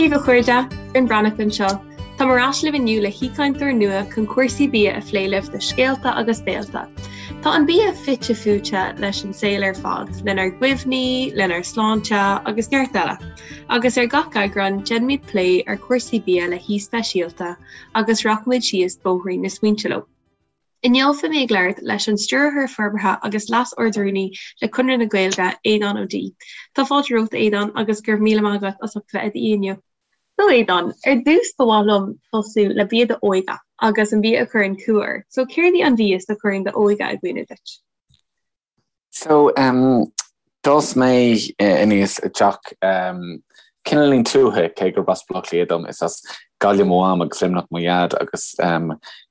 Dia daoibh a chairde, Finn Breathnach anseo. Táim ar ais libh inniu le haoichainteoir nua chun cúrsaí bia a phlé libh do Scéalta agus Béalta. Tá an bia fite fuaite leis an saol ar fad, lenár gcuimhní, lenár sláinte agus neart eile. Agus ar gach eagrán, déanfaimid plé ar chúrsaí bia le haoi speisialta agus rachaimid síos bóithrín na smaointe leo. Inniu beidh mé ag labhairt leis an Stiúrthóir Forbartha agus Leas-Ard-Rúnaí le Conradh na Gaeilge, Aodhán Ó Dí. Tá fáilte romhat, a Aodháin, agus go raibh míle maith agat as ucht bheith i d'aoi inniu. So, Aodhán, ar dtús ba mhaith liom tosú le bia d'óige agus an bia a chuireann cumha ort. So, céard í an mhias a chuireann d'óige i gcuimhne duit? So, d'fhás mé aníos i dteach cineáilín tuaithe, cé gurb as Baile Átha Cliath dom, is as Gaillimh mo mham agus Luimneach mo dhaid agus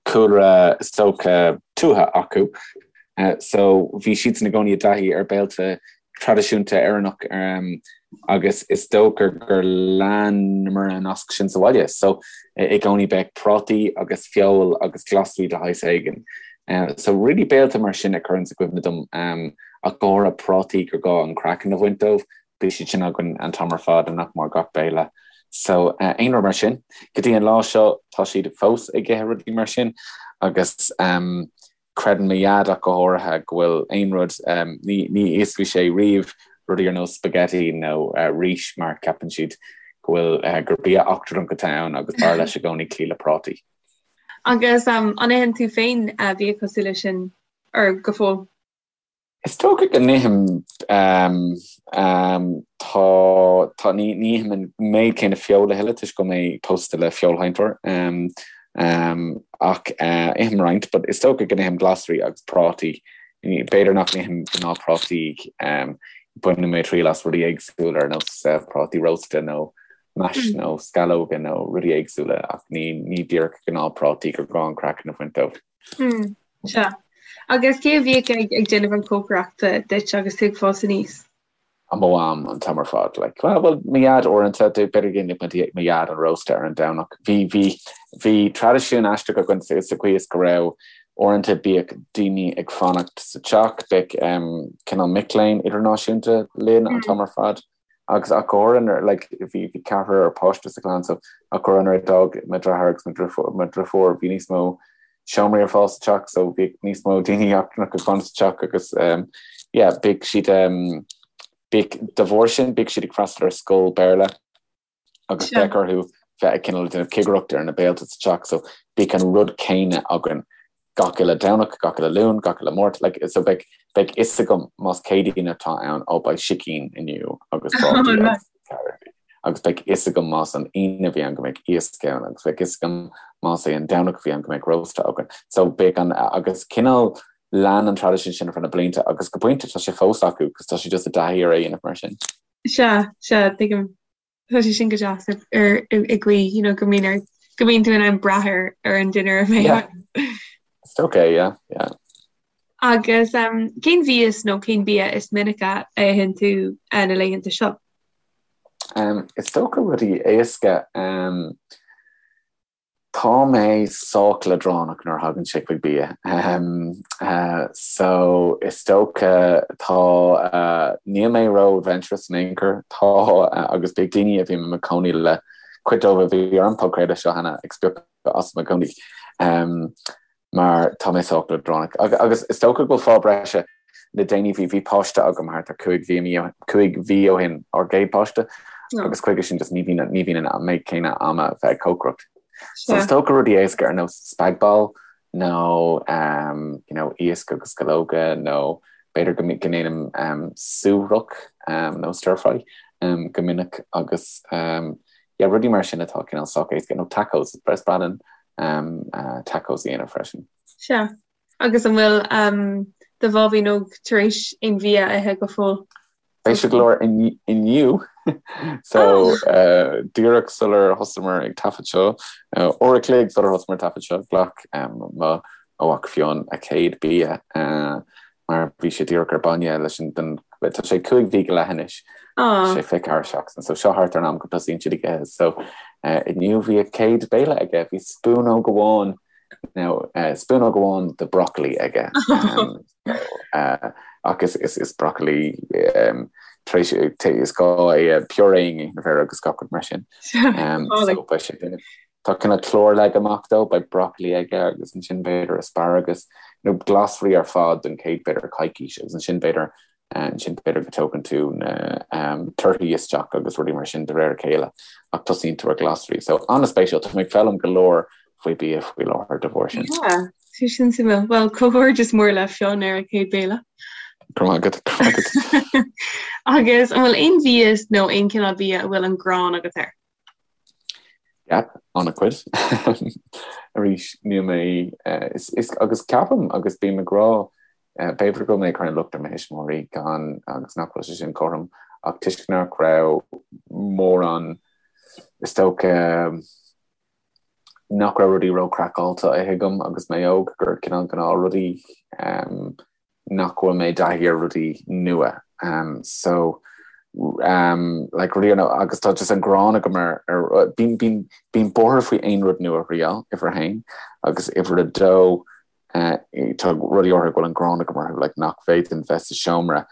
cúlra is dócha tuaithe acu. So, bhí siadsan i gcónaí i dtaithí ar béilte traidisiúnta Éireannach agus is dócha gur leanamar an nasc sin sa bhaile. So i gcónaí bheadh prátaí agus feoil agus glasraí de shaghas éigin. So really béilte mar sin a chuireanns i gcuimhne dom ach go háirithe prátaí gur gá an craiceann a bhaint dóibh, bhí siad sin againn an t-am ar fad i nach mór gach béile. So aon rud mar sin. Go dtí an lá seo tá siad fós ag ithe rudaí mar sin agus Creideann mo dhaid ach go háirithe go bhfuil aon rud, ní íosfaidh sé riamh rudaí ar nós spaghetti nó rís mar ceapann siad go bhfuil, gur bia eachtrannach atá ann agus b'fhearr leis i gcónaí cloí le prátaí. Agus an itheann tú féin bia cosúil leis sin or go fóill? Is dócha go n-ithim, tá, tá, ní, ní ithim an méid céanna feoil a thuilleadh toisc go bhfuil mé pósta le feoilsheinteoir, ach ithim roinnt, but is dócha go n-ithim glasraí agus prátaí. B'fhéidir nach n-ithim gnáthphrátaí, baineann mé triail as rudaí éagsúla ar nós prátaí rósta nó mash nó sceallóga nó rudaí éagsúla ach ní, ní díreach gnáthphrátaí gur gá an craiceann a bhaint dóibh. Sea. Agus cé a bhíodh ag ag déanamh an cócaireachta duit agus tú ag fás aníos? Mo mham an t-am ar fad. Like, well, well, mo dhaid uaireanta, b'fhéidir go ndéanadh mo dhaid an rósta ar an Domhnach. Bhí, bhí, bhí traidisiún aisteach againn sa sa chaoi is go raibh uaireanta bíodh daoine ag fanacht sa teach, bheadh um, cineál mic léinn idirnáisiúnta linn an t-am ar fad. Agus ach go háirithe nuair, like, bhí, bhí ceathrar páiste sa chlann so ach go háirithe nuair a d'fhág mo dheartháir agus mo dhriofúr, mo dhriofúr, bhí níos mó seomraí ar fáil sa teach so bhí níos mó daoine eachtrannacha ag fanacht sa teach agus um, yeah, bhíodh siad um, bhíodh, de bharr sin, bhíodh siad ag freastal ar scoil Béarla agus bheadh orthu bheith ag cineál déanamh cigireacht ar na béilte sa teach so bhíodh an rud céanna againn gach uile Domhnach, gach uile Luan, gach uile Máirt, like, so beidh, beidh fhios agam más Céadaoin atá ann, ó beidh sicín inniu agus prátaí agus agus beidh fhios agam más an Aoine a bhí ann go mbeidh iasc ann agus beidh fhios agam más é an Domhnach a bhí ann go mbeidh rósta againn. So beidh an, agus cineál lean an traidisiún sin ar feadh na blianta agus go pointe tá sé fós acu cos tá siad just i dtaithí ar é a dhéanamh mar sin. Sea, sea, tuigim. Tá sé sin go deas ar i gcaoi, you know, go mbíonn ar go mbíonn tú in ann brath ar ar an dinnéar a bheidh Yeah. It's okay, yeah, yeah. Agus um, cén mhias nó cén bia is minice a itheann tú uh, na laethanta seo? Um, is dócha rudaí éasca. Um, Tá mé sách leadránach nuair a thagann sé chuig bia. So, is dócha, tá, níl mé ró-adventurous in aon chor. Tá, agus bíodh daoine a bhím i mo chónaí le, cuid dóibh a bhí ar an podchraoladh seo cheana, ag spochadh asam i gcónaí. Mar tá mé sách leadránach. Agus is dócha go bhfuil fáth breise le déanaí, bhí, bhí páiste agam thart ar 5 mhí, 5 mhí ó shin, ár gcéad páiste, agus chuige sin just ní bhíonn, ní bhíonn an méid céanna ama bheith ag cócaireacht. So is dócha rudaí éasca ar nós spag bol nó um, you know, iasc agus sceallóga nó b'fhéidir go go ndéanaim um, suaithrach um, nó stir fry um, go minic agus um, yeah, rudaí mar sin atá cineál sách éasca nó tacos, is breá linn tacos a dhéanamh freisin. Sea. Agus an bhfuil do bháibín óg tar éis aon bhia a ithe go fóill? Beidh sé go leor inniu. So díreach sular thosaíomar ag taifead seo, uair a chloig sular thosaíomar ag taifead seo, ghlac mo mhac Fionn a chéad bia. mar bhí sé díreach ar bainne leis an den tá sé 5 mhí go leith anois sé 24 seachtain so seo thart ar an am go dtosaíonn siad ag ithe so inniu bhí a chéad béile aige bhí spúnóg amháin. Now spúnóg amháin de broccoli aige ach is broccoli tar éis is gá é a purée a dhéanamh air agus gach rud mar sin. So beidh sé duine Tá cineál clár leagtha amach dó, beidh broccoli aige agus ansin b'fhéidir asparagus nó glasraí ar fad don chéad b'fhéidir coicís agus ansin b'fhéidir ansin b'fhéidir go dtógann tú na torthaí isteach agus rudaí mar sin de réir a chéile ach tosaíonn tú ar ghlasraí. So an-spéisiúil, tá mé ag foghlaim go leor faoi bia faoi láthair de bharr sin. Yeah, sé sin suimiúil. Bhuel, comhghairdeas mór le Fionn ar a chéad béile. Go raibh maith agat, go raibh maith agat. Agus an bhfuil aon mhias nó aon chineál bia a bhfuil an gráin agat air? Yeah, an-chuid. Arís, níl mé, is, is, agus ceapaim agus bím ag rá, b'fhéidir go bhfuil mé ag cur an locht ar mo thuismitheoirí gan, agus nach bhfuil sé sin cothrom, ach toisc nach raibh mórán, is dócha, nach raibh rudaí ró-chraiceáilte á ithe agam agus mé óg, gur cineál gnáthrudaí nach bhfuil mé i dtaithí ar rudaí nua. So like rudaí ar agus tá just an gráin agam ar ar bím bím bím buartha faoi aon rud nua a thriail, uimhir a haon, agus uimhir a dó tá rudaí áirithe go bhfuil an gráin agam orthu like nach bhféadfainn bheith sa seomra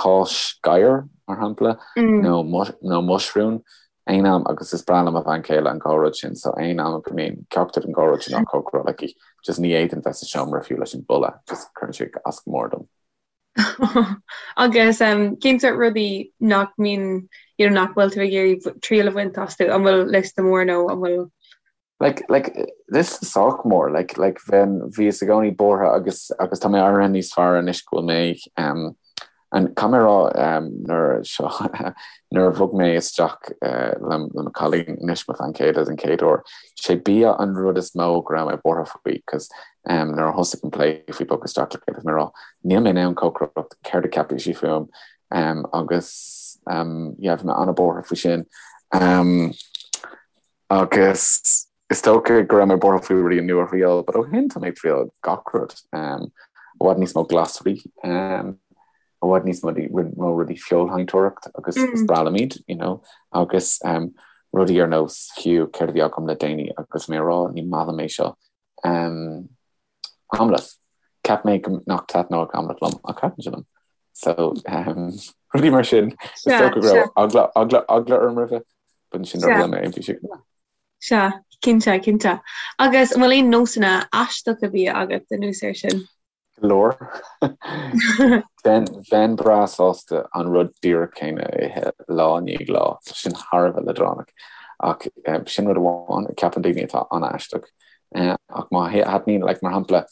cáis gadhair mar shampla nó nó muisriún aon am agus is breá le mo bhean chéile an dhá rud sin so aon am go mbíonn ceachtar den dhá rud sin á chócaráil aici just ní fhéadfainn bheith sa seomra fiú leis an boladh just cuireann sé as go mór dom. Agus cén sórt rudaí nach mbíonn you know nach bhfuil tú ag iarraidh triail a bhaint astu? An bhfuil liosta mór nó an bhfuil Like, like, liosta sách mór, like, like, bheinn, bhíos i gcónaí buartha agus, agus tá mé éirithe níos fearr anois go bhfuil mé, um, an, caithfidh mé a rá, um, nuair seo, nuair a bhog mé isteach, uh, le, le mo chailín anois, mo bhean chéile den chéad uair, sé bia an rud is mó go raibh mé buartha faoi, cos, um, nuair a thosaigh an plé faoi bogadh isteach le chéile, bhí mé ag rá, níl mé in ann cócaireacht, céard a cheapfaidh sí fúm, um, agus, um, yeah, bhí mé an-buartha faoi sin. Um, Agus is dócha go raibh mé buartha faoi rudaí nua a thriail, but ó shin tá mé ag triail gach rud. I bhfad níos mó glasraí, i bhfad níos mó rudaí feoilséantóireacht agus is breá liom iad, you know, agus rudaí ar nós fiú céard a bhí agam le déanaí agus mé ag rá ní maith liom é seo. Aimléit. Cheap mé go nach dtaitneodh aimléit liom ach thaitin sé liom. So rudaí mar sin. Is dócha go raibh eagla, eagla, eagla orm roimhe, but ansin nuair a bhuail mé é bhí sé go maith. Sea, cinnte, cinnte. Agus an bhfuil aon nósanna aisteacha bia agat anuas air sin? Go leor. Bheinn breá sásta an rud díreach céanna a ithe lá i ndiaidh lá. Tá sin thar a bheith leadránach. Ach sin rud amháin a cheapann daoine atá an-aisteach. Ach má thaitníonn, like, mar shampla,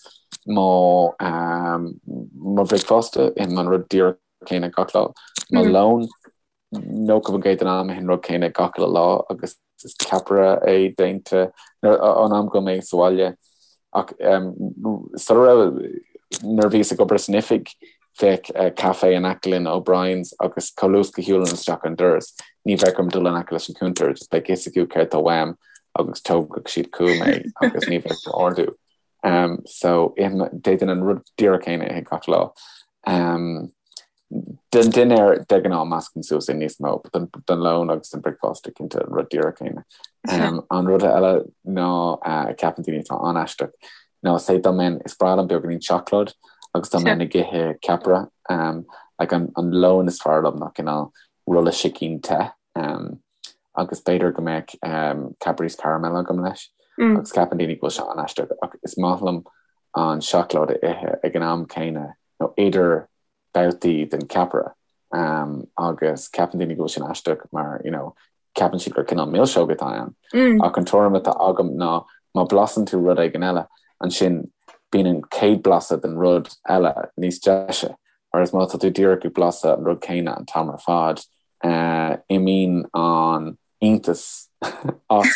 mo mo bhricfeasta, ithim an rud díreach céanna gach lá. Mo lón, 90% den am ithim an rud céanna gach uile lá agus is ceapaire é déanta an am go mé sa bhaile. Ach sula raibh, nuair a bhíos ag obair san oifig, bheadh caife in aice linn, O'Brien's, agus chomh luath is go shiúlainn isteach an doras, ní bheadh orm dul in aice leis an cuntar, just beidh fhios acu céard tá uaim agus tógfadh siad chugam é agus ní bheadh ordú. So d'fhéadfainn an rud díreach céanna a ithe gach lá. Don dinnéar de ghnáth meascaim suas é níos mó, but don lón agus don bricfeasta cinnte an rud díreach céanna. An rud eile ná a ceapann daoine atá an-aisteach ná say dá mbeinn, is breá liom beagáinín seacláid agus dá mbeinn ag ithe ceapaire, like an lón is fearr liom ná cineál rolla sicín te agus b'fhéidir go mbeadh Cadbury's caramel agam leis agus ceapann daoine go bhfuil sé an-aisteach ach is maith liom an seacláid a ithe ag an am céanna nó idir babhtaí den cheapaire agus ceapann daoine go bhfuil sin aisteach mar you know ceapann siad gur cineál milseog atá ann. Ach an tuairim atá agam ná má blasann tú rud éigin eile, ansin bíonn an chéad blaiseadh den rud eile níos deise, whereas má tá tú díreach ag blaiseadh an rud céanna an t-am ar fad, imíonn an iontas as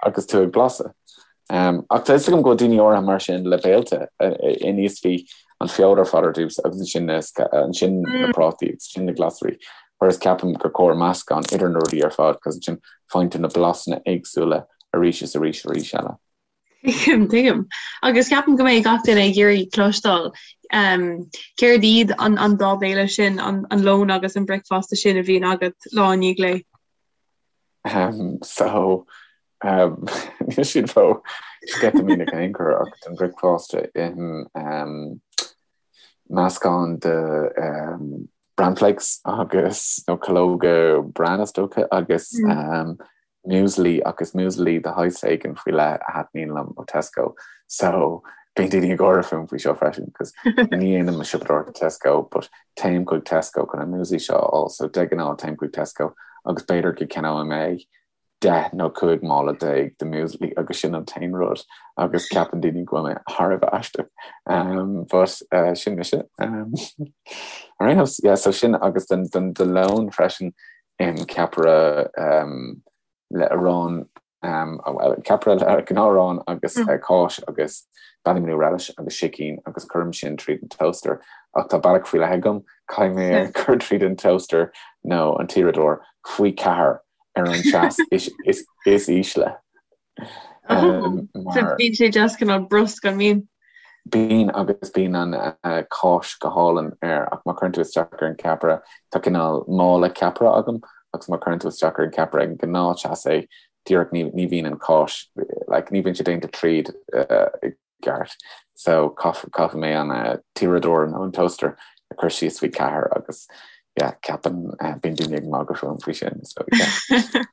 agus tú ag blaiseadh. Ach tá fhios agam go bhfuil daoine áirithe mar sin le béilte. Aníos bhí an feoil ar fad ar dtús agus ansin na ansin na prátaí agus ansin na glasraí. Whereas ceapaim gur cóir meascán idir na rudaí ar fad cos ansin faigheann tú na blasanna éagsúla arís is arís arís eile. Tuigim, tuigim. Agus ceapaim go mbeidh gach duine ag iarraidh cloisteáil céard iad an an dá bhéile sin, an an lón agus an bricfeasta sin a bhíonn agat lá i ndiaidh lae. Um, so, um, níl siad ró. Sceitimíneach in aon chor ach don bhricfeasta ithim meascán de bran flakes agus nó calóga bran is dócha agus muesli agus muesli de shaghas éigin faoi leith a thaitníonn liom ó Tesco. So bíonn daoine ag gáire fúm faoi seo freisin cos ní dhéanaim mo siopadóireacht i Tesco but téim chuig Tesco chun an muesli seo a fháil so de ghnáth téim chuig Tesco agus b'fhéidir go gceannóidh mé 10 nó 15 mála de muesli agus sin an t-aon rud agus ceapann daoine go bhfuil mé thar a bheith aisteach. Um, but uh, sin mise. Um, ar aon nós, yeah, so sin agus don, don, do lón freisin ithim ceapaire um, le arán um, well, ceapaire le gnáth-arán agus mm. uh, cáis agus Ballymanew relish agus sicín agus cuirim sin tríd an toaster ach tá bealach faoi leith agam caithfidh mé é a chur tríd an toaster nó an t-uaireadóir faoi ceathair ar an teas is ísle. So bíonn sé just cineál brusc an mbíonn? Bíonn agus bíonn an cáis go hálainn air ach má chuireann tú isteach ar an gceapaire, tá cineál mála ceapaire agam agus má chuireann tú isteach ar an gceapaire ag an gnáth-teas é díreach ní bhíonn an cáis, like ní bhíonn sé déanta tríd i gceart. So caithfidh mé an t-uaireadóir nó an toaster a chur síos faoi cheathair agus yeah ceapann bíonn daoine ag magadh fúm faoi sin so yeah.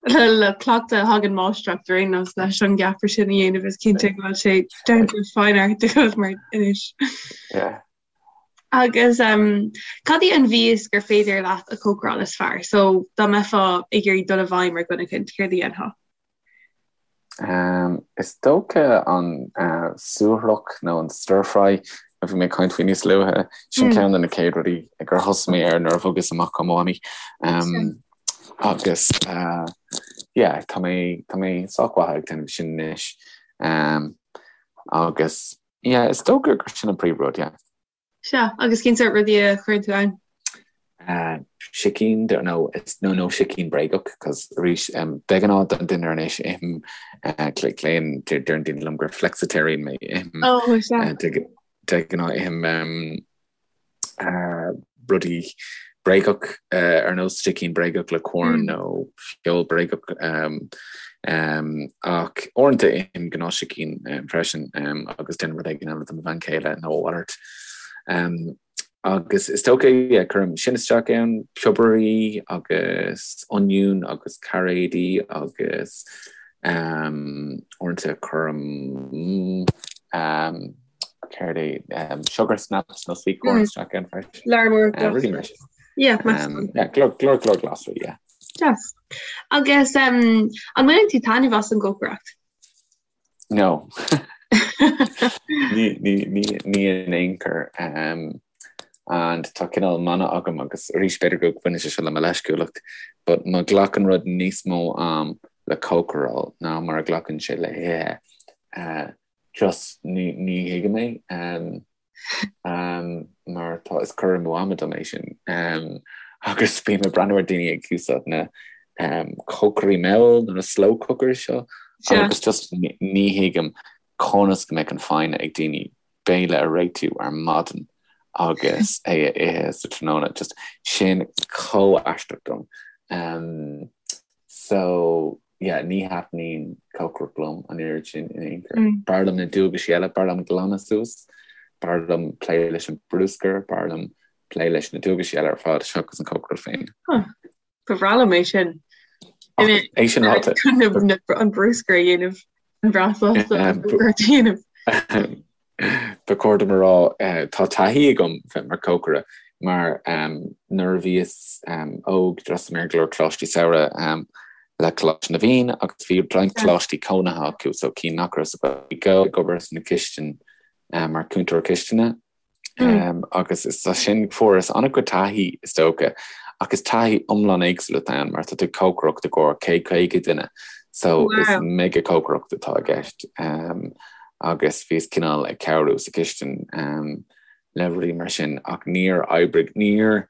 Le cleachtadh a thagann máistreacht ar aon nós leis an gceapaire sin a dhéanamh is cinnte go bhfuil sé down to fine art agat mar anois. Yeah. Agus um, cad í an mhias gur féidir leat a chócaráil is fearr? So dá mbeifeá ag iarraidh dul i bhfeidhm ar dhuine éicint, céard a dhéanfá? Is dócha an suaithrach nó an stir fry a bhí mé ag caint faoi níos luaithe, sin ceann de na chéad rudaí gur thosaigh mé air nuair a bhogas amach ó Mhamaí. Agus yeah, tá mé tá mé sách mhaith ag déanamh sin anois. Agus yeah, is dócha gur sin an príomhrud, yeah. Sea, agus cén sórt rudaí a chuireann tú ann? Sicín, nó nó nó sicín bréagach, cos arís de ghnáth don dinnéar anois ithim glaonn deireann daoine liom gur flexitarian mé ithim Oh, sea. de ghnáth ithim rudaí bréagach ar nós sicín bréagach le corn nó feoil bréagach ach uaireanta ithim gnáth-sicín freisin agus déanaim rud éigin eile do mo bhean chéile nó a mhalairt. Agus is dócha yeah cuirim sin isteach ann, piobairí agus oinniún agus cairéidí agus uaireanta cuirim céard é, sugar snaps nó sweet corn isteach ann freisin. Lear mór glasraí. Rudaí mar sin. Yeah, meascán. Yeah, go leor go leor glasraí, yeah. Deas. Agus um, an mbaineann tú taitneamh as an gcócaireacht? No. Ní, ní, ní, ní in aon chor. Um, and tá cineál mana agam agus arís b'fhéidir go mbaineann sé seo le mo leisciúlacht, but má ghlacann rud níos mó am le cócaráil ná mar a ghlacann sé le hithe, uh, Just ní ní thuigim é mar tá is cur amú ama dom é sin agus bím ag breathnú ar daoine ag úsáid na cócairí mall nó na slow cookers seo agus just ní thuigim conas go mbeadh an foighne ag daoine béile a réitiú ar maidin agus é a ithe sa tráthnóna just sin chomh aisteach dom. So yeah, ní thaitníonn cócaireacht liom an oiread sin in aon chor. B'fhearr liom na dualgaisí eile, b'fhearr liom glanadh suas, b'fhearr liom plé leis an bruscar, b'fhearr liom plé leis na dualgaisí eile ar fad seachas an cócaireacht féin. Huh. Ba bhreá liom é sin. É sin ráite. An bruscar a dhéanamh, an bhreá sásta an bruscar a dhéanamh. Ba chóir dom a rá, tá taithí agam bheith mar chócaire mar nuair a bhíos óg d'fhreastail mé ar go leor coláistí samhraidh le Coláiste na bhFiann agus bhí roinnt coláistí cónaithe acu so cinn nach raibh sa Ghaeilge ag obair sna cistine mar chúntóir cistine. Agus is as sin fuaireas an-chuid taithí is dócha, ach is taithí iomlán éagsúil atá ann mar tá tú ag cócaireacht i gcomhair 150 duine so is mega cócaireacht atá i gceist agus bhíos cineál ag cabhrú sa chistin le rudaí mar sin ach níor oibrigh, níor,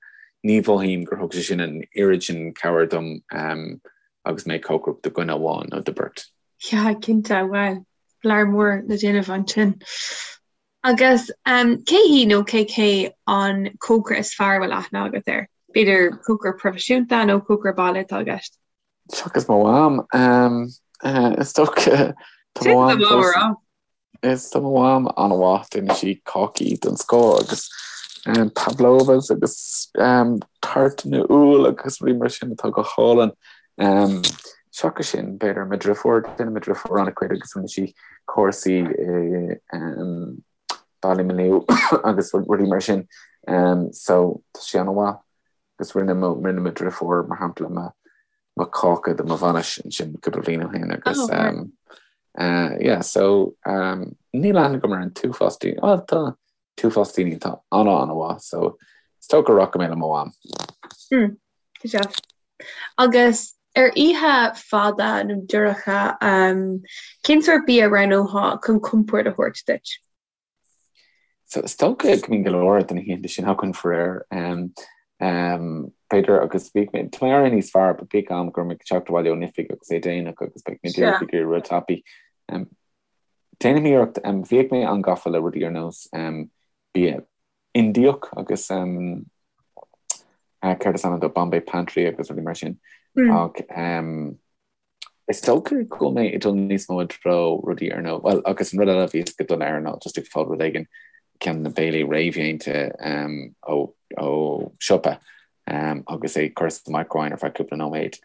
ní mhothaím gur thug sé sin an oiread sin cabhair dom agus mé ag cócaireacht do dhuine amháin nó do bheirt. Yeah, cinnte, bhuel, lear mór le déanamh ansin. Agus cé hí nó cé hé an cócaire is fearr a bhfuil aithne agat air? B'fhéidir cócaire proifisiúnta nó cócaire baile atá i gceist? Seachas mo mham, is dócha. Tá mo mham fós Is tá mo mham an-mhaith, déanann sí cácaí den scoth agus pavlovas agus tartanna úll agus rudaí mar sin atá go hálainn. Seachas sin, b'fhéidir mo dhriofúr, déanann mo dhriofúr an-chuid agus rinne sí cúrsaí i Ballymaloe agus rudaí mar sin. So tá sí an-mhaith agus rinne mo rinne mo dhriofúr mar shampla mo mo cáca do mo bhainis ansin cúpla bliain ó shin agus oh, uh, yeah, so um, níl aithne agam ar an t-uafás daoine well, tá t-uafás daoine atá ana an-mhaith so is dócha go rachaidh mé le mo mham. Mm, agus ar oíche fada nó dorcha um, cén sórt bia a roghnófá chun compord a thabhairt duit? So is dócha go mbíonn go leor de na hoícheanta sin againn faraor. B'fhéidir agus bhíodh mé, tá mé éirithe níos fearr, but bhíodh am go raibh mé ag teacht abhaile ón oifig agus é déanach agus beidh mé díreach ag iarraidh rud tapaidh. Déanaim iarracht, bhíodh mé an-gafa le rudaí ar nós bia Indiach agus céard is ainm dó, Bombay Pantry agus rudaí mar sin ach Is dócha go bhfuil mé ag dul níos mó i dtreo rudaí ar nós, bhuel, agus an rud eile a bhíos go dona air ná just ag fáil rud éigin, ceann de na béilí réamhdhéanta ó ó siopa agus é curtha sa micro-oven ar feadh cúpla nóiméad.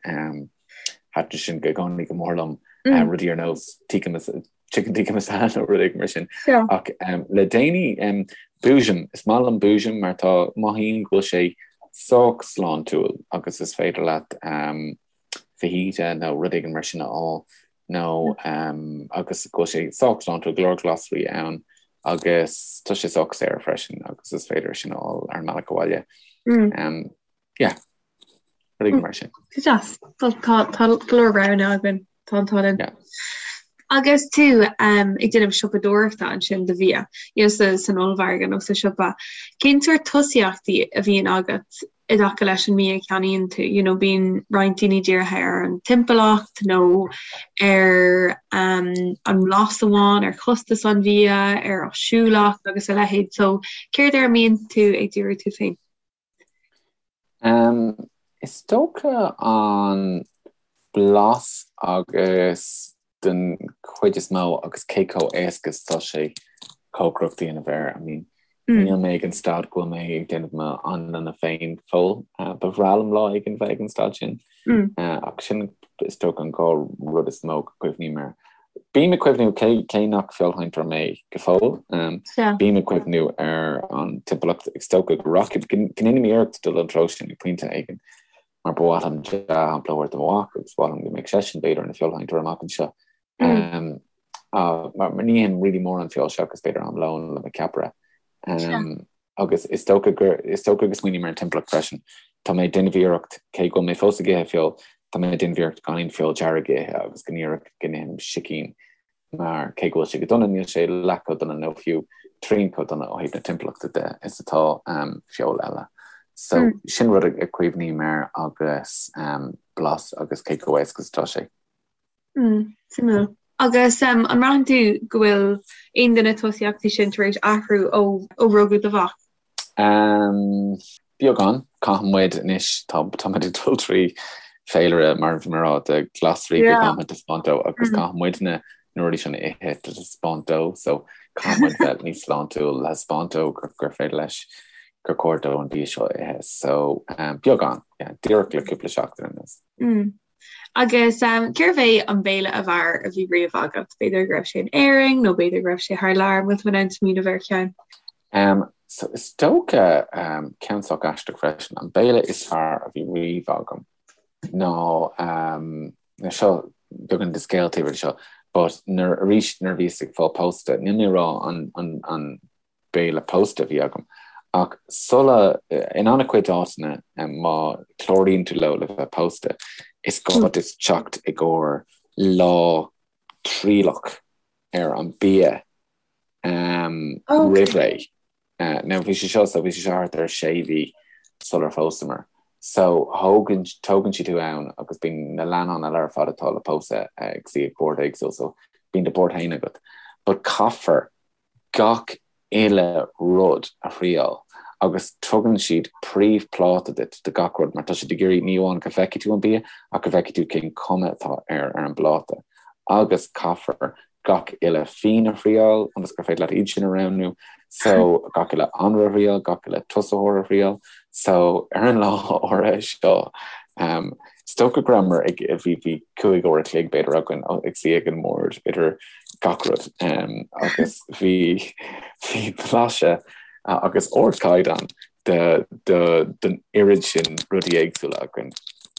Thaitin sin i gcónaí go mór liom, rudaí ar nós tikka chicken tikka masala nó rud éigin mar sin. Ach le déanaí, Boojum, is maith liom Boojum mar tá, mothaím go bhfuil sé sách sláintiúil agus is féidir leat fajita nó rud éigin mar sin a fháil nó agus go bhfuil sé sách sláintiúil, go leor glasraí ann agus tá sé sách saor freisin agus is féidir sin a fháil ar an mbealach abhaile. Yeah, rud éigin mar sin. Go deas. Tá tá go leor roghanna againn. Tá an t-ádh linn. Yeah. Agus tú um, ag déanamh siopadóireachta ansin do bhia, you know, sa, san ollmhargadh nó sa siopa, cén sórt tosaíochtaí a bhíonn agat i dtaca leis an mbia a cheannaíonn tú, you know, bíonn roinnt daoine dírithe ar an timpeallacht nó ar um, an mblas amháin, ar chostas an bhia, ar áisiúlacht agus a leithéid. So céard ar a mbíonn tú ag díriú tú féin? Um, is dócha an blas agus den chuid is mó agus cé chomh éasca is atá sé cócaireacht a dhéanamh air. I mean, níl mé ag an staid go bhfuil mé ag déanamh m'anlanna féin go fóill. Ba bhreá liom lá éigin bheith ag an staid sin. Ach sin is dócha an dhá rud is mó go cuimhním air. Bím ag cuimhniú, cé cé nach feoilsheinteoir mé go fóill, bím ag cuimhniú ar an timpeallacht. Is dócha go rachaidh, go ndéanfaidh mé iarracht dul an treo sin ag pointe éigin. mar ba mhaith liom dea-shampla a thabhairt do mo mhac agus ba mhaith liom go mbeadh seisean b'fhéidir ina feoilsheinteoir amach anseo. Mar ní ithim really mórán feoil seachas b'fhéidir am lóin le mo cheapaire. Agus is dócha gur is dócha go smaoiním ar an timpeallacht freisin. Tá mé ag déanamh iarracht, cé go bhfuil mé fós ag ithe feoil, tá mé ag déanamh iarracht gan aon feoil dearg a ithe agus go ndíreach go n-ithim sicín mar cé go bhfuil sé go dona, níl sé leath chomh dona nó fiú trian chomh dona ó thaobh na timpeallachta de is atá feoil eile. So sin rud a cuimhním air agus blas agus cé chomh éasca is atá sé. Suimiúil. Agus an mbraitheann tú go bhfuil aon de na tosaíochtaí sin tar éis athrú ó rugadh do mhac? Beagán. Caitheann muid anois, tá muid ag dul trí féilire, mar a bhí mé ag rá, de ghlasraí go gcaithfimid taispeáint dó agus caithfidh muidne na rudaí sin a ithe le taispeáint dó so caithfidh muid bheith níos sláintiúil le taispeáint dó gur féidir leis gur chóir dó an bia seo a ithe. So beagán, yeah, díreach le cúpla seachtain anuas. Agus cérbh é an béile ab fhearr a bhí riamh agat? B'fhéidir go raibh sé in Éirinn nó b'fhéidir go raibh sé thar lear, an bhfuil tú in ann smaoineamh ar cheann? So is dócha, ceann sách aisteach freisin, an béile is fearr a bhí riamh agam ná, now seo beagán de scéal taobh thiar de seo, but nuair, arís nuair a bhíos ag fáil pósta, níl mé ag rá an, an, an, béile pósta a bhí agam. Ach sula, in an-chuid áiteanna, má chláraíonn tú leo le bheith pósta, is gá duit teacht i gcomhair lá trialach ar an bia roimh ré. Now bhí sé seo, so bhí sé seo thart ar sé mhí sular phósamar. So thógann, tógann siad thú ann agus bíonn na leannáin eile ar fad atá le pósadh ag suí ag bord éagsúil, so bíonn do bord féin agat. But caithfear gach uile rud a thriáil agus tugann siad príomhphláta duit de gach rud mar tá siad ag iarraidh ní amháin go bhfeicfidh tú an bia ach go bhfeicfidh tú cén cuma atá air ar an bpláta agus caithfear. gach uile fíon a thriáil ionas gur féidir leat iad sin a roghnú, so gach uile anraith a thriáil, gach uile tosaitheoir a thriáil. So ar an lá áirithe seo, um, is dócha go rabhamar ag, bhí, bhí 5 uair a chloig b'fhéidir againn ag suí ag an mbord idir gach rud um, agus bhí, bhí blaiseadh agus ardchaighdeán de, de, den oiread sin rudaí éagsúla againn.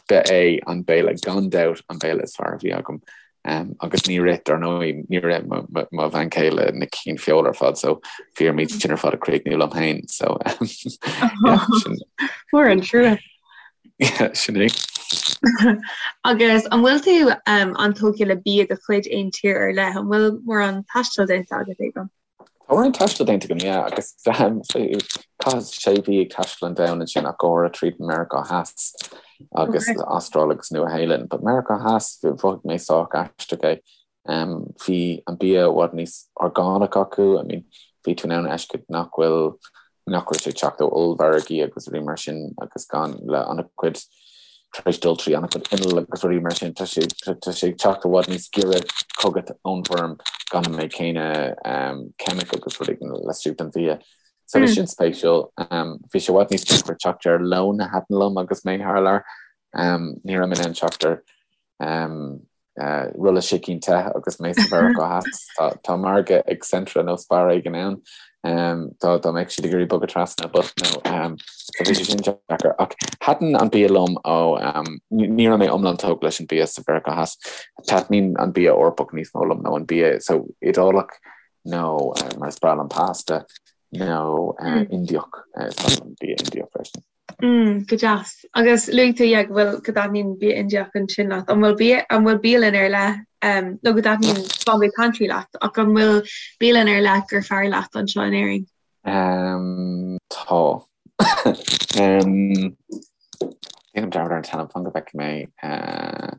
Ba é an béile gan dabht an béile is fearr a bhí agam. Agus níor ith, dar ndóigh, níor ith mo bhean chéile na cinn feola ar fad, so bhí orm iad sin ar fad a chríochnú liom féin, so yeah, sin. Mór an trua. Yeah, sin é. Agus an bhfuil tú an-tógtha le bia de chuid aon tír ar leith? An bhfuil mórán taistil déanta agat, Aodán? Tá mórán taistil déanta agam, yeah, agus chaitheas sé mhí ag taisteal an domhain ansin ach go háirithe tríd Meiriceá Theas agus Astráil agus Nua Shéalainn. But Meiriceá Theas, mhothaigh mé sách aisteach é. Bhí an bia i bhfad níos orgánach acu, I mean, bhí tú in ann a fheiscint nach bhfuil, nach raibh sé ag teacht ó ollmhargaí agus rudaí mar sin agus gan le an-chuid tar éis dul trí an-chuid inneall agus rudaí mar sin, tá sé tá sé ag teacht i bhfad níos giorra chugat ón bhfeirm gan an méid céanna ceimic agus rudaí laistigh den bhia. So bhí sin spéisiúil. Bhí sé i bhfad níos deacra teacht ar lón a thaitin liom agus mé thar lear. Ní raibh mé in ann teacht ar rolla sicín te agus mé sa Mheiriceá Theas. Tá margadh ag Centra nó Spar éigin ann dá dá mbeadh siad ag iarraidh bogadh trasna but no so bhí sé sin deacair. Ach thaitin an bia liom ó ní raibh mé iomlán tógtha leis an bia sa Mheiriceá Theas. Taitníonn an bia Eorpach níos mó liom nó an bia so Iodálach nó mar is breá liom pasta nó Indiach is breá liom bia Indiach freisin. Mm, go deas. Agus luaigh tú, yeah, go bhfuil, go dtaitníonn bia Indiach ansin leat. An bhfuil bia, an bhfuil bialann ar leith, um, nó go dtaitníonn Bombay Pantry leat, ach an bhfuil bialann ar leith gur fearr leat anseo in Éirinn? Um, tá. um, Déanaim dearmad ar an t-ainm, fan go bhfeicfidh mé. Uh,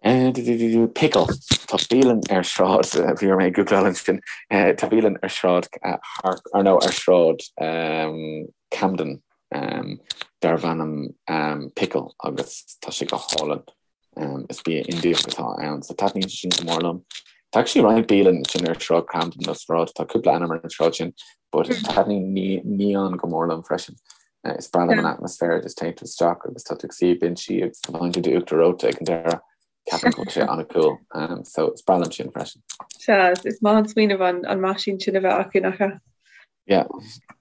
Pickle. Tá bialann ar sráid, bhí orm é a ghoogláil ansin, tá bialann ar sráid or no ar sráid Camden darb ainm Pickle agus tá sé go hálainn. Is bia Indiach atá ann so taitníonn sé sin go mór liom. Tá actually roinnt bialann sin ar sráid Camden nó sráid, tá cúpla ainm ar an sráid sin but taitníonn Neon go mór liom freisin. Is breá liom an atmaisféar, just téann tú isteach agus tá tú ag suí ag binsí agus faigheann tú d'uachtar reoite ag an deireadh. Ceapaim go bhfuil sé an-cool. So is breá liom sin freisin. Sea, is maith an smaoineamh an an meaisín sin a bheith acu, nach ea? Yeah.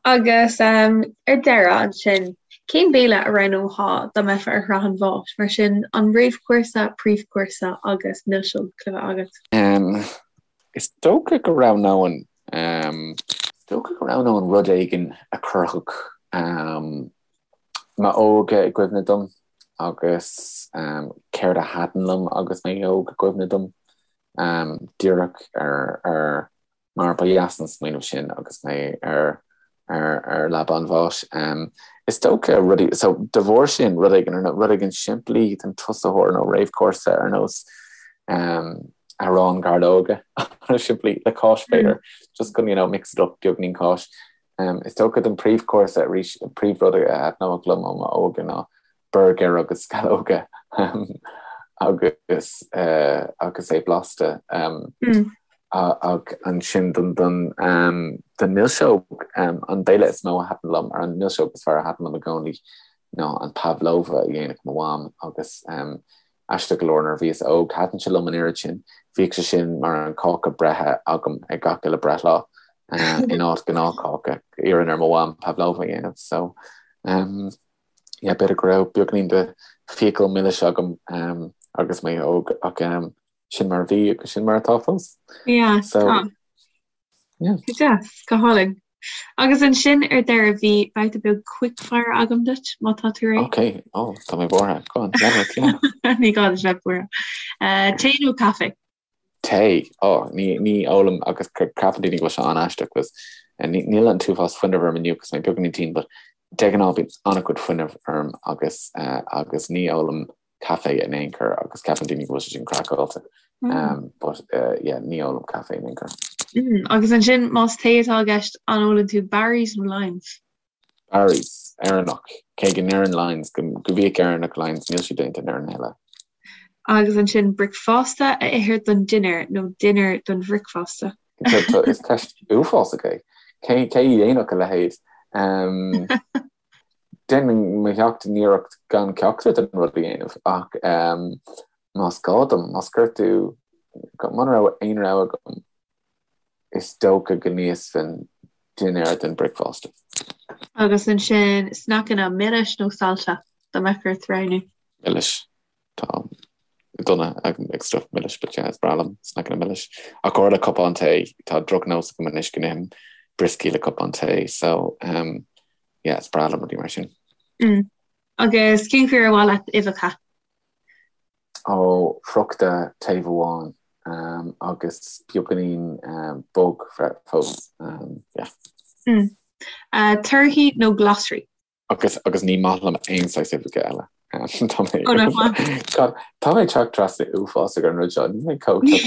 Agus um, ar deireadh ansin, cén béile a roghnófá dá mbeifeá ar shraith an bháis? Mar sin, an réamhchúrsa, príomhchúrsa agus milseog le bheith agat? Um, is dócha go roghnóinn Is dócha go roghnóinn rud éigin a chuirfeadh m'óige i gcuimhne dom agus céard a thaitin liom agus mé óg i gcuimhne dom. Díreach ar mar ba dheas an smaoineamh sin agus mé ar ar leaba an bháis. Is dócha rudaí, so de bharr sin, rud éigin, rud éigin simplí don tosaitheoir nó réamhchúrsa ar nós arán gairleoige, simplí, le cáis b'fhéidir, just chun, you know, mix it up, beagainín cáis. Is dócha don príomhchúrsa arís, an príomhrud a thaitneodh liom ó m'óige ná burgair agus sceallóga agus agus é blasta. Ach ansin don don don milseog, an béile is mó a thaitin liom, ar an milseog is fearr a thaitin liom i gcónaí ná an pavlova a dhéanadh mo mham agus aisteach go leor nuair a bhíos óg thaitin sé liom an oiread sin, bhíodh sé sin mar an cáca breithe agam ag gach uile breithlá in áit gnáthcháca, iarrainn ar mo mham pavlova a dhéanamh so yeah, b'fhéidir go raibh beagainín de fiacail milis agam agus mé óg ach sin mar a bhí agus sin mar atá fós. Yeah, So, tá. yeah. Go deas, go hálainn. Agus ansin ar deireadh bhí babhta beag quickfire agam duit má tá tú réidh. Ok, oh, tá mé buartha. Go on, lean ort, yeah. Ní gá duit bheith buartha. Uh, tae nó caife? Tae, oh, ní, ní ólaim agus ceapann daoine go bhfuil sé an-aisteach agus ní, níl an t-uafás fuinnimh orm inniu agus mé beagáinín tinn, but de ghnáth bíonn an-chuid fuinnimh orm agus, uh, agus ní ólaim caife in aon chor agus ceapann daoine go bhfuil sé sin craiceáilte. Um, but uh, yeah, ní ólaim caife in aon chor. Mm, agus ansin más tae atá i gceist an ólann tú Barry's nó Lyons? Barry's, Éireannach. Cé go ndeireann Lyons go, go bhíodh Éireannach Lyons, níl siad déanta in Éirinn a thuilleadh. Agus ansin bricfeasta a ithe don dinnéar nó dinnéar don bhricfeasta? Is ceist uafásach é. Cé a dhéanfadh a leithéid? Déanaim mo sheacht n-iarracht gan ceachtar den rud a dhéanamh ach más gá dom, más gortú, muna raibh aon rogha agam, is dócha go n-íosfainn dinnéar den bricfeasta. Agus ansin sneaiceanna milis nó saillte, dá mbeadh ort roghnú? Milis. Tá dona ag stuff milis but yeah, is breá liom sneaiceanna milis. Ach go le cupán tae, tá drochnós agam anois go n-ithim brioscaí le cupán tae so um, yeah, is breá liom rudaí mar sin. Mm. Agus cén chaoi ar mhaith leat uibheacha? Ó, friochta taobh amháin um, agus beagáinín um, bog fós. Um, yeah. Mm. Uh, torthaí nó glasraí? Agus agus ní maith liom aon saghas uibheacha eile. Tá mé Tá mé ag teacht trasna uafásach ar an rud seo, níl mé chomh Ní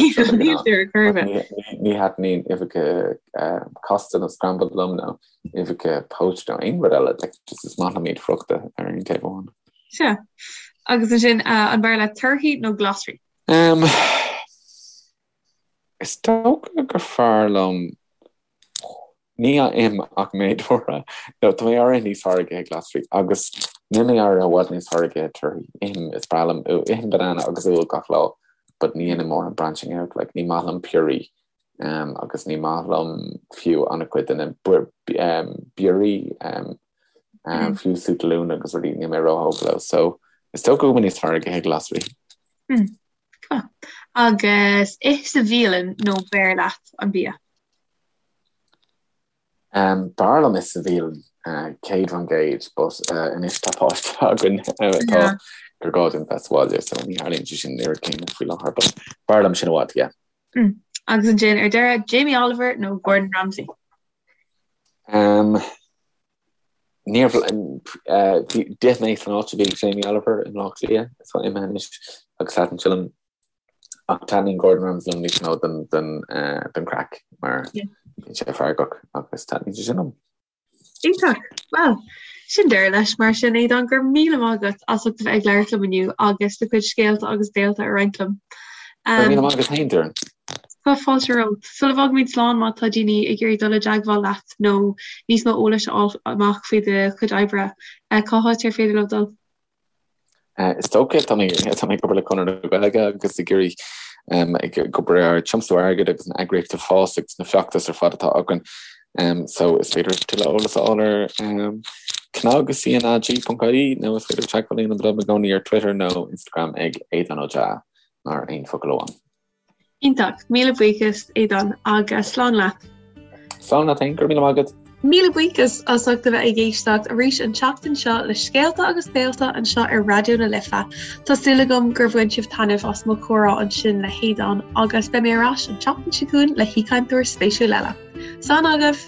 thaitníonn uibheacha casta nó scrambled liom nó uibheacha poached nó aon rud eile, like just is maith liom iad friochta ar aon taobh amháin. Sea. Agus ansin an b'fhearr leat torthaí nó glasraí? Is dócha gur fearr liom Ní ithim ach méid áirithe, nó tá mé áirithe níos fearr ag ithe glasraí, agus níl mé áirithe i bhfad níos fearr ag ithe torthaí. Ithim, is breá liom, ithim banana agus úll gach lá, but ní dhéanaim mórán branching out, like ní maith liom piorraí, um, agus ní maith liom fiú an-chuid de na biorraí, um, um, fiú sú talún agus rudaí, níl mé róthógtha leo, so is dócha go bhfuil mé níos fearr ag ithe glasraí. Mm. Agus ith sa bhialann nó beir leat an bia? B'fhearr liom ith sa bhialann, 100%, but anois tá páiste againn atá gur gá dúinn bheith sa bhaile, so ní tharlaíonn sé sin an oiread céanna faoi láthair, but b'fhearr liom sin i bhfad, yeah. Agus ansin ar deireadh, Jamie Oliver nó Gordon Ramsay? Níor d'ith mé san áit a bhí ag Jamie Oliver i mBleá Cliath, atá imithe anois, agus thaitin sé liom. Ach taitníonn Gordon Ramsay liom níos mó don don craic mar bíonn sé feargach agus taitníonn sé sin liom. Iontach! Bhuel, sin deireadh leis mar sin, Aodán, go raibh míle maith agat as ucht a bheith ag labhairt liom inniu agus do chuid scéalta agus béalta a roinnt liom. Go raibh míle maith agat féin, Doireann. Tá fáilte romhat. Sula bhfágaimid slán, má tá daoine ag iarraidh dul i dteagmháil leat nó níos mó eolais a fháil amach faoi do chuid oibre, cá háit ar féidir leo dul? Is dócha, tá mé tá mé ag obair le Conradh na Gaeilge agus ag iarraidh ag obair ar tiomsú airgid agus an eagraíocht ag fás agus na feachtais ar fad atá againn. So is féidir tuilleadh eolas a fháil ar cnag cnag.ie nó is féidir teagmháil a dhéanamh liom i gcónaí ar Twitter nó Instagram ag Aodán Ó Deá mar aon focal amháin. Iontach. Míle buíochas, Aodán, agus slán leat. Slán leat féin, go raibh míle maith agat. Míle buíochas as ucht a bheith ag éisteacht arís an tseachtain seo le Scéalta agus Béalta anseo ar Raidió na Life. Tá súil agam gur bhain sibh taitneamh as mo chomhrá ansin le hAodán agus beidh mé ar ais an tseachtain seo chugainn le haoichainteoir spéisiúil eile. Slán agaibh!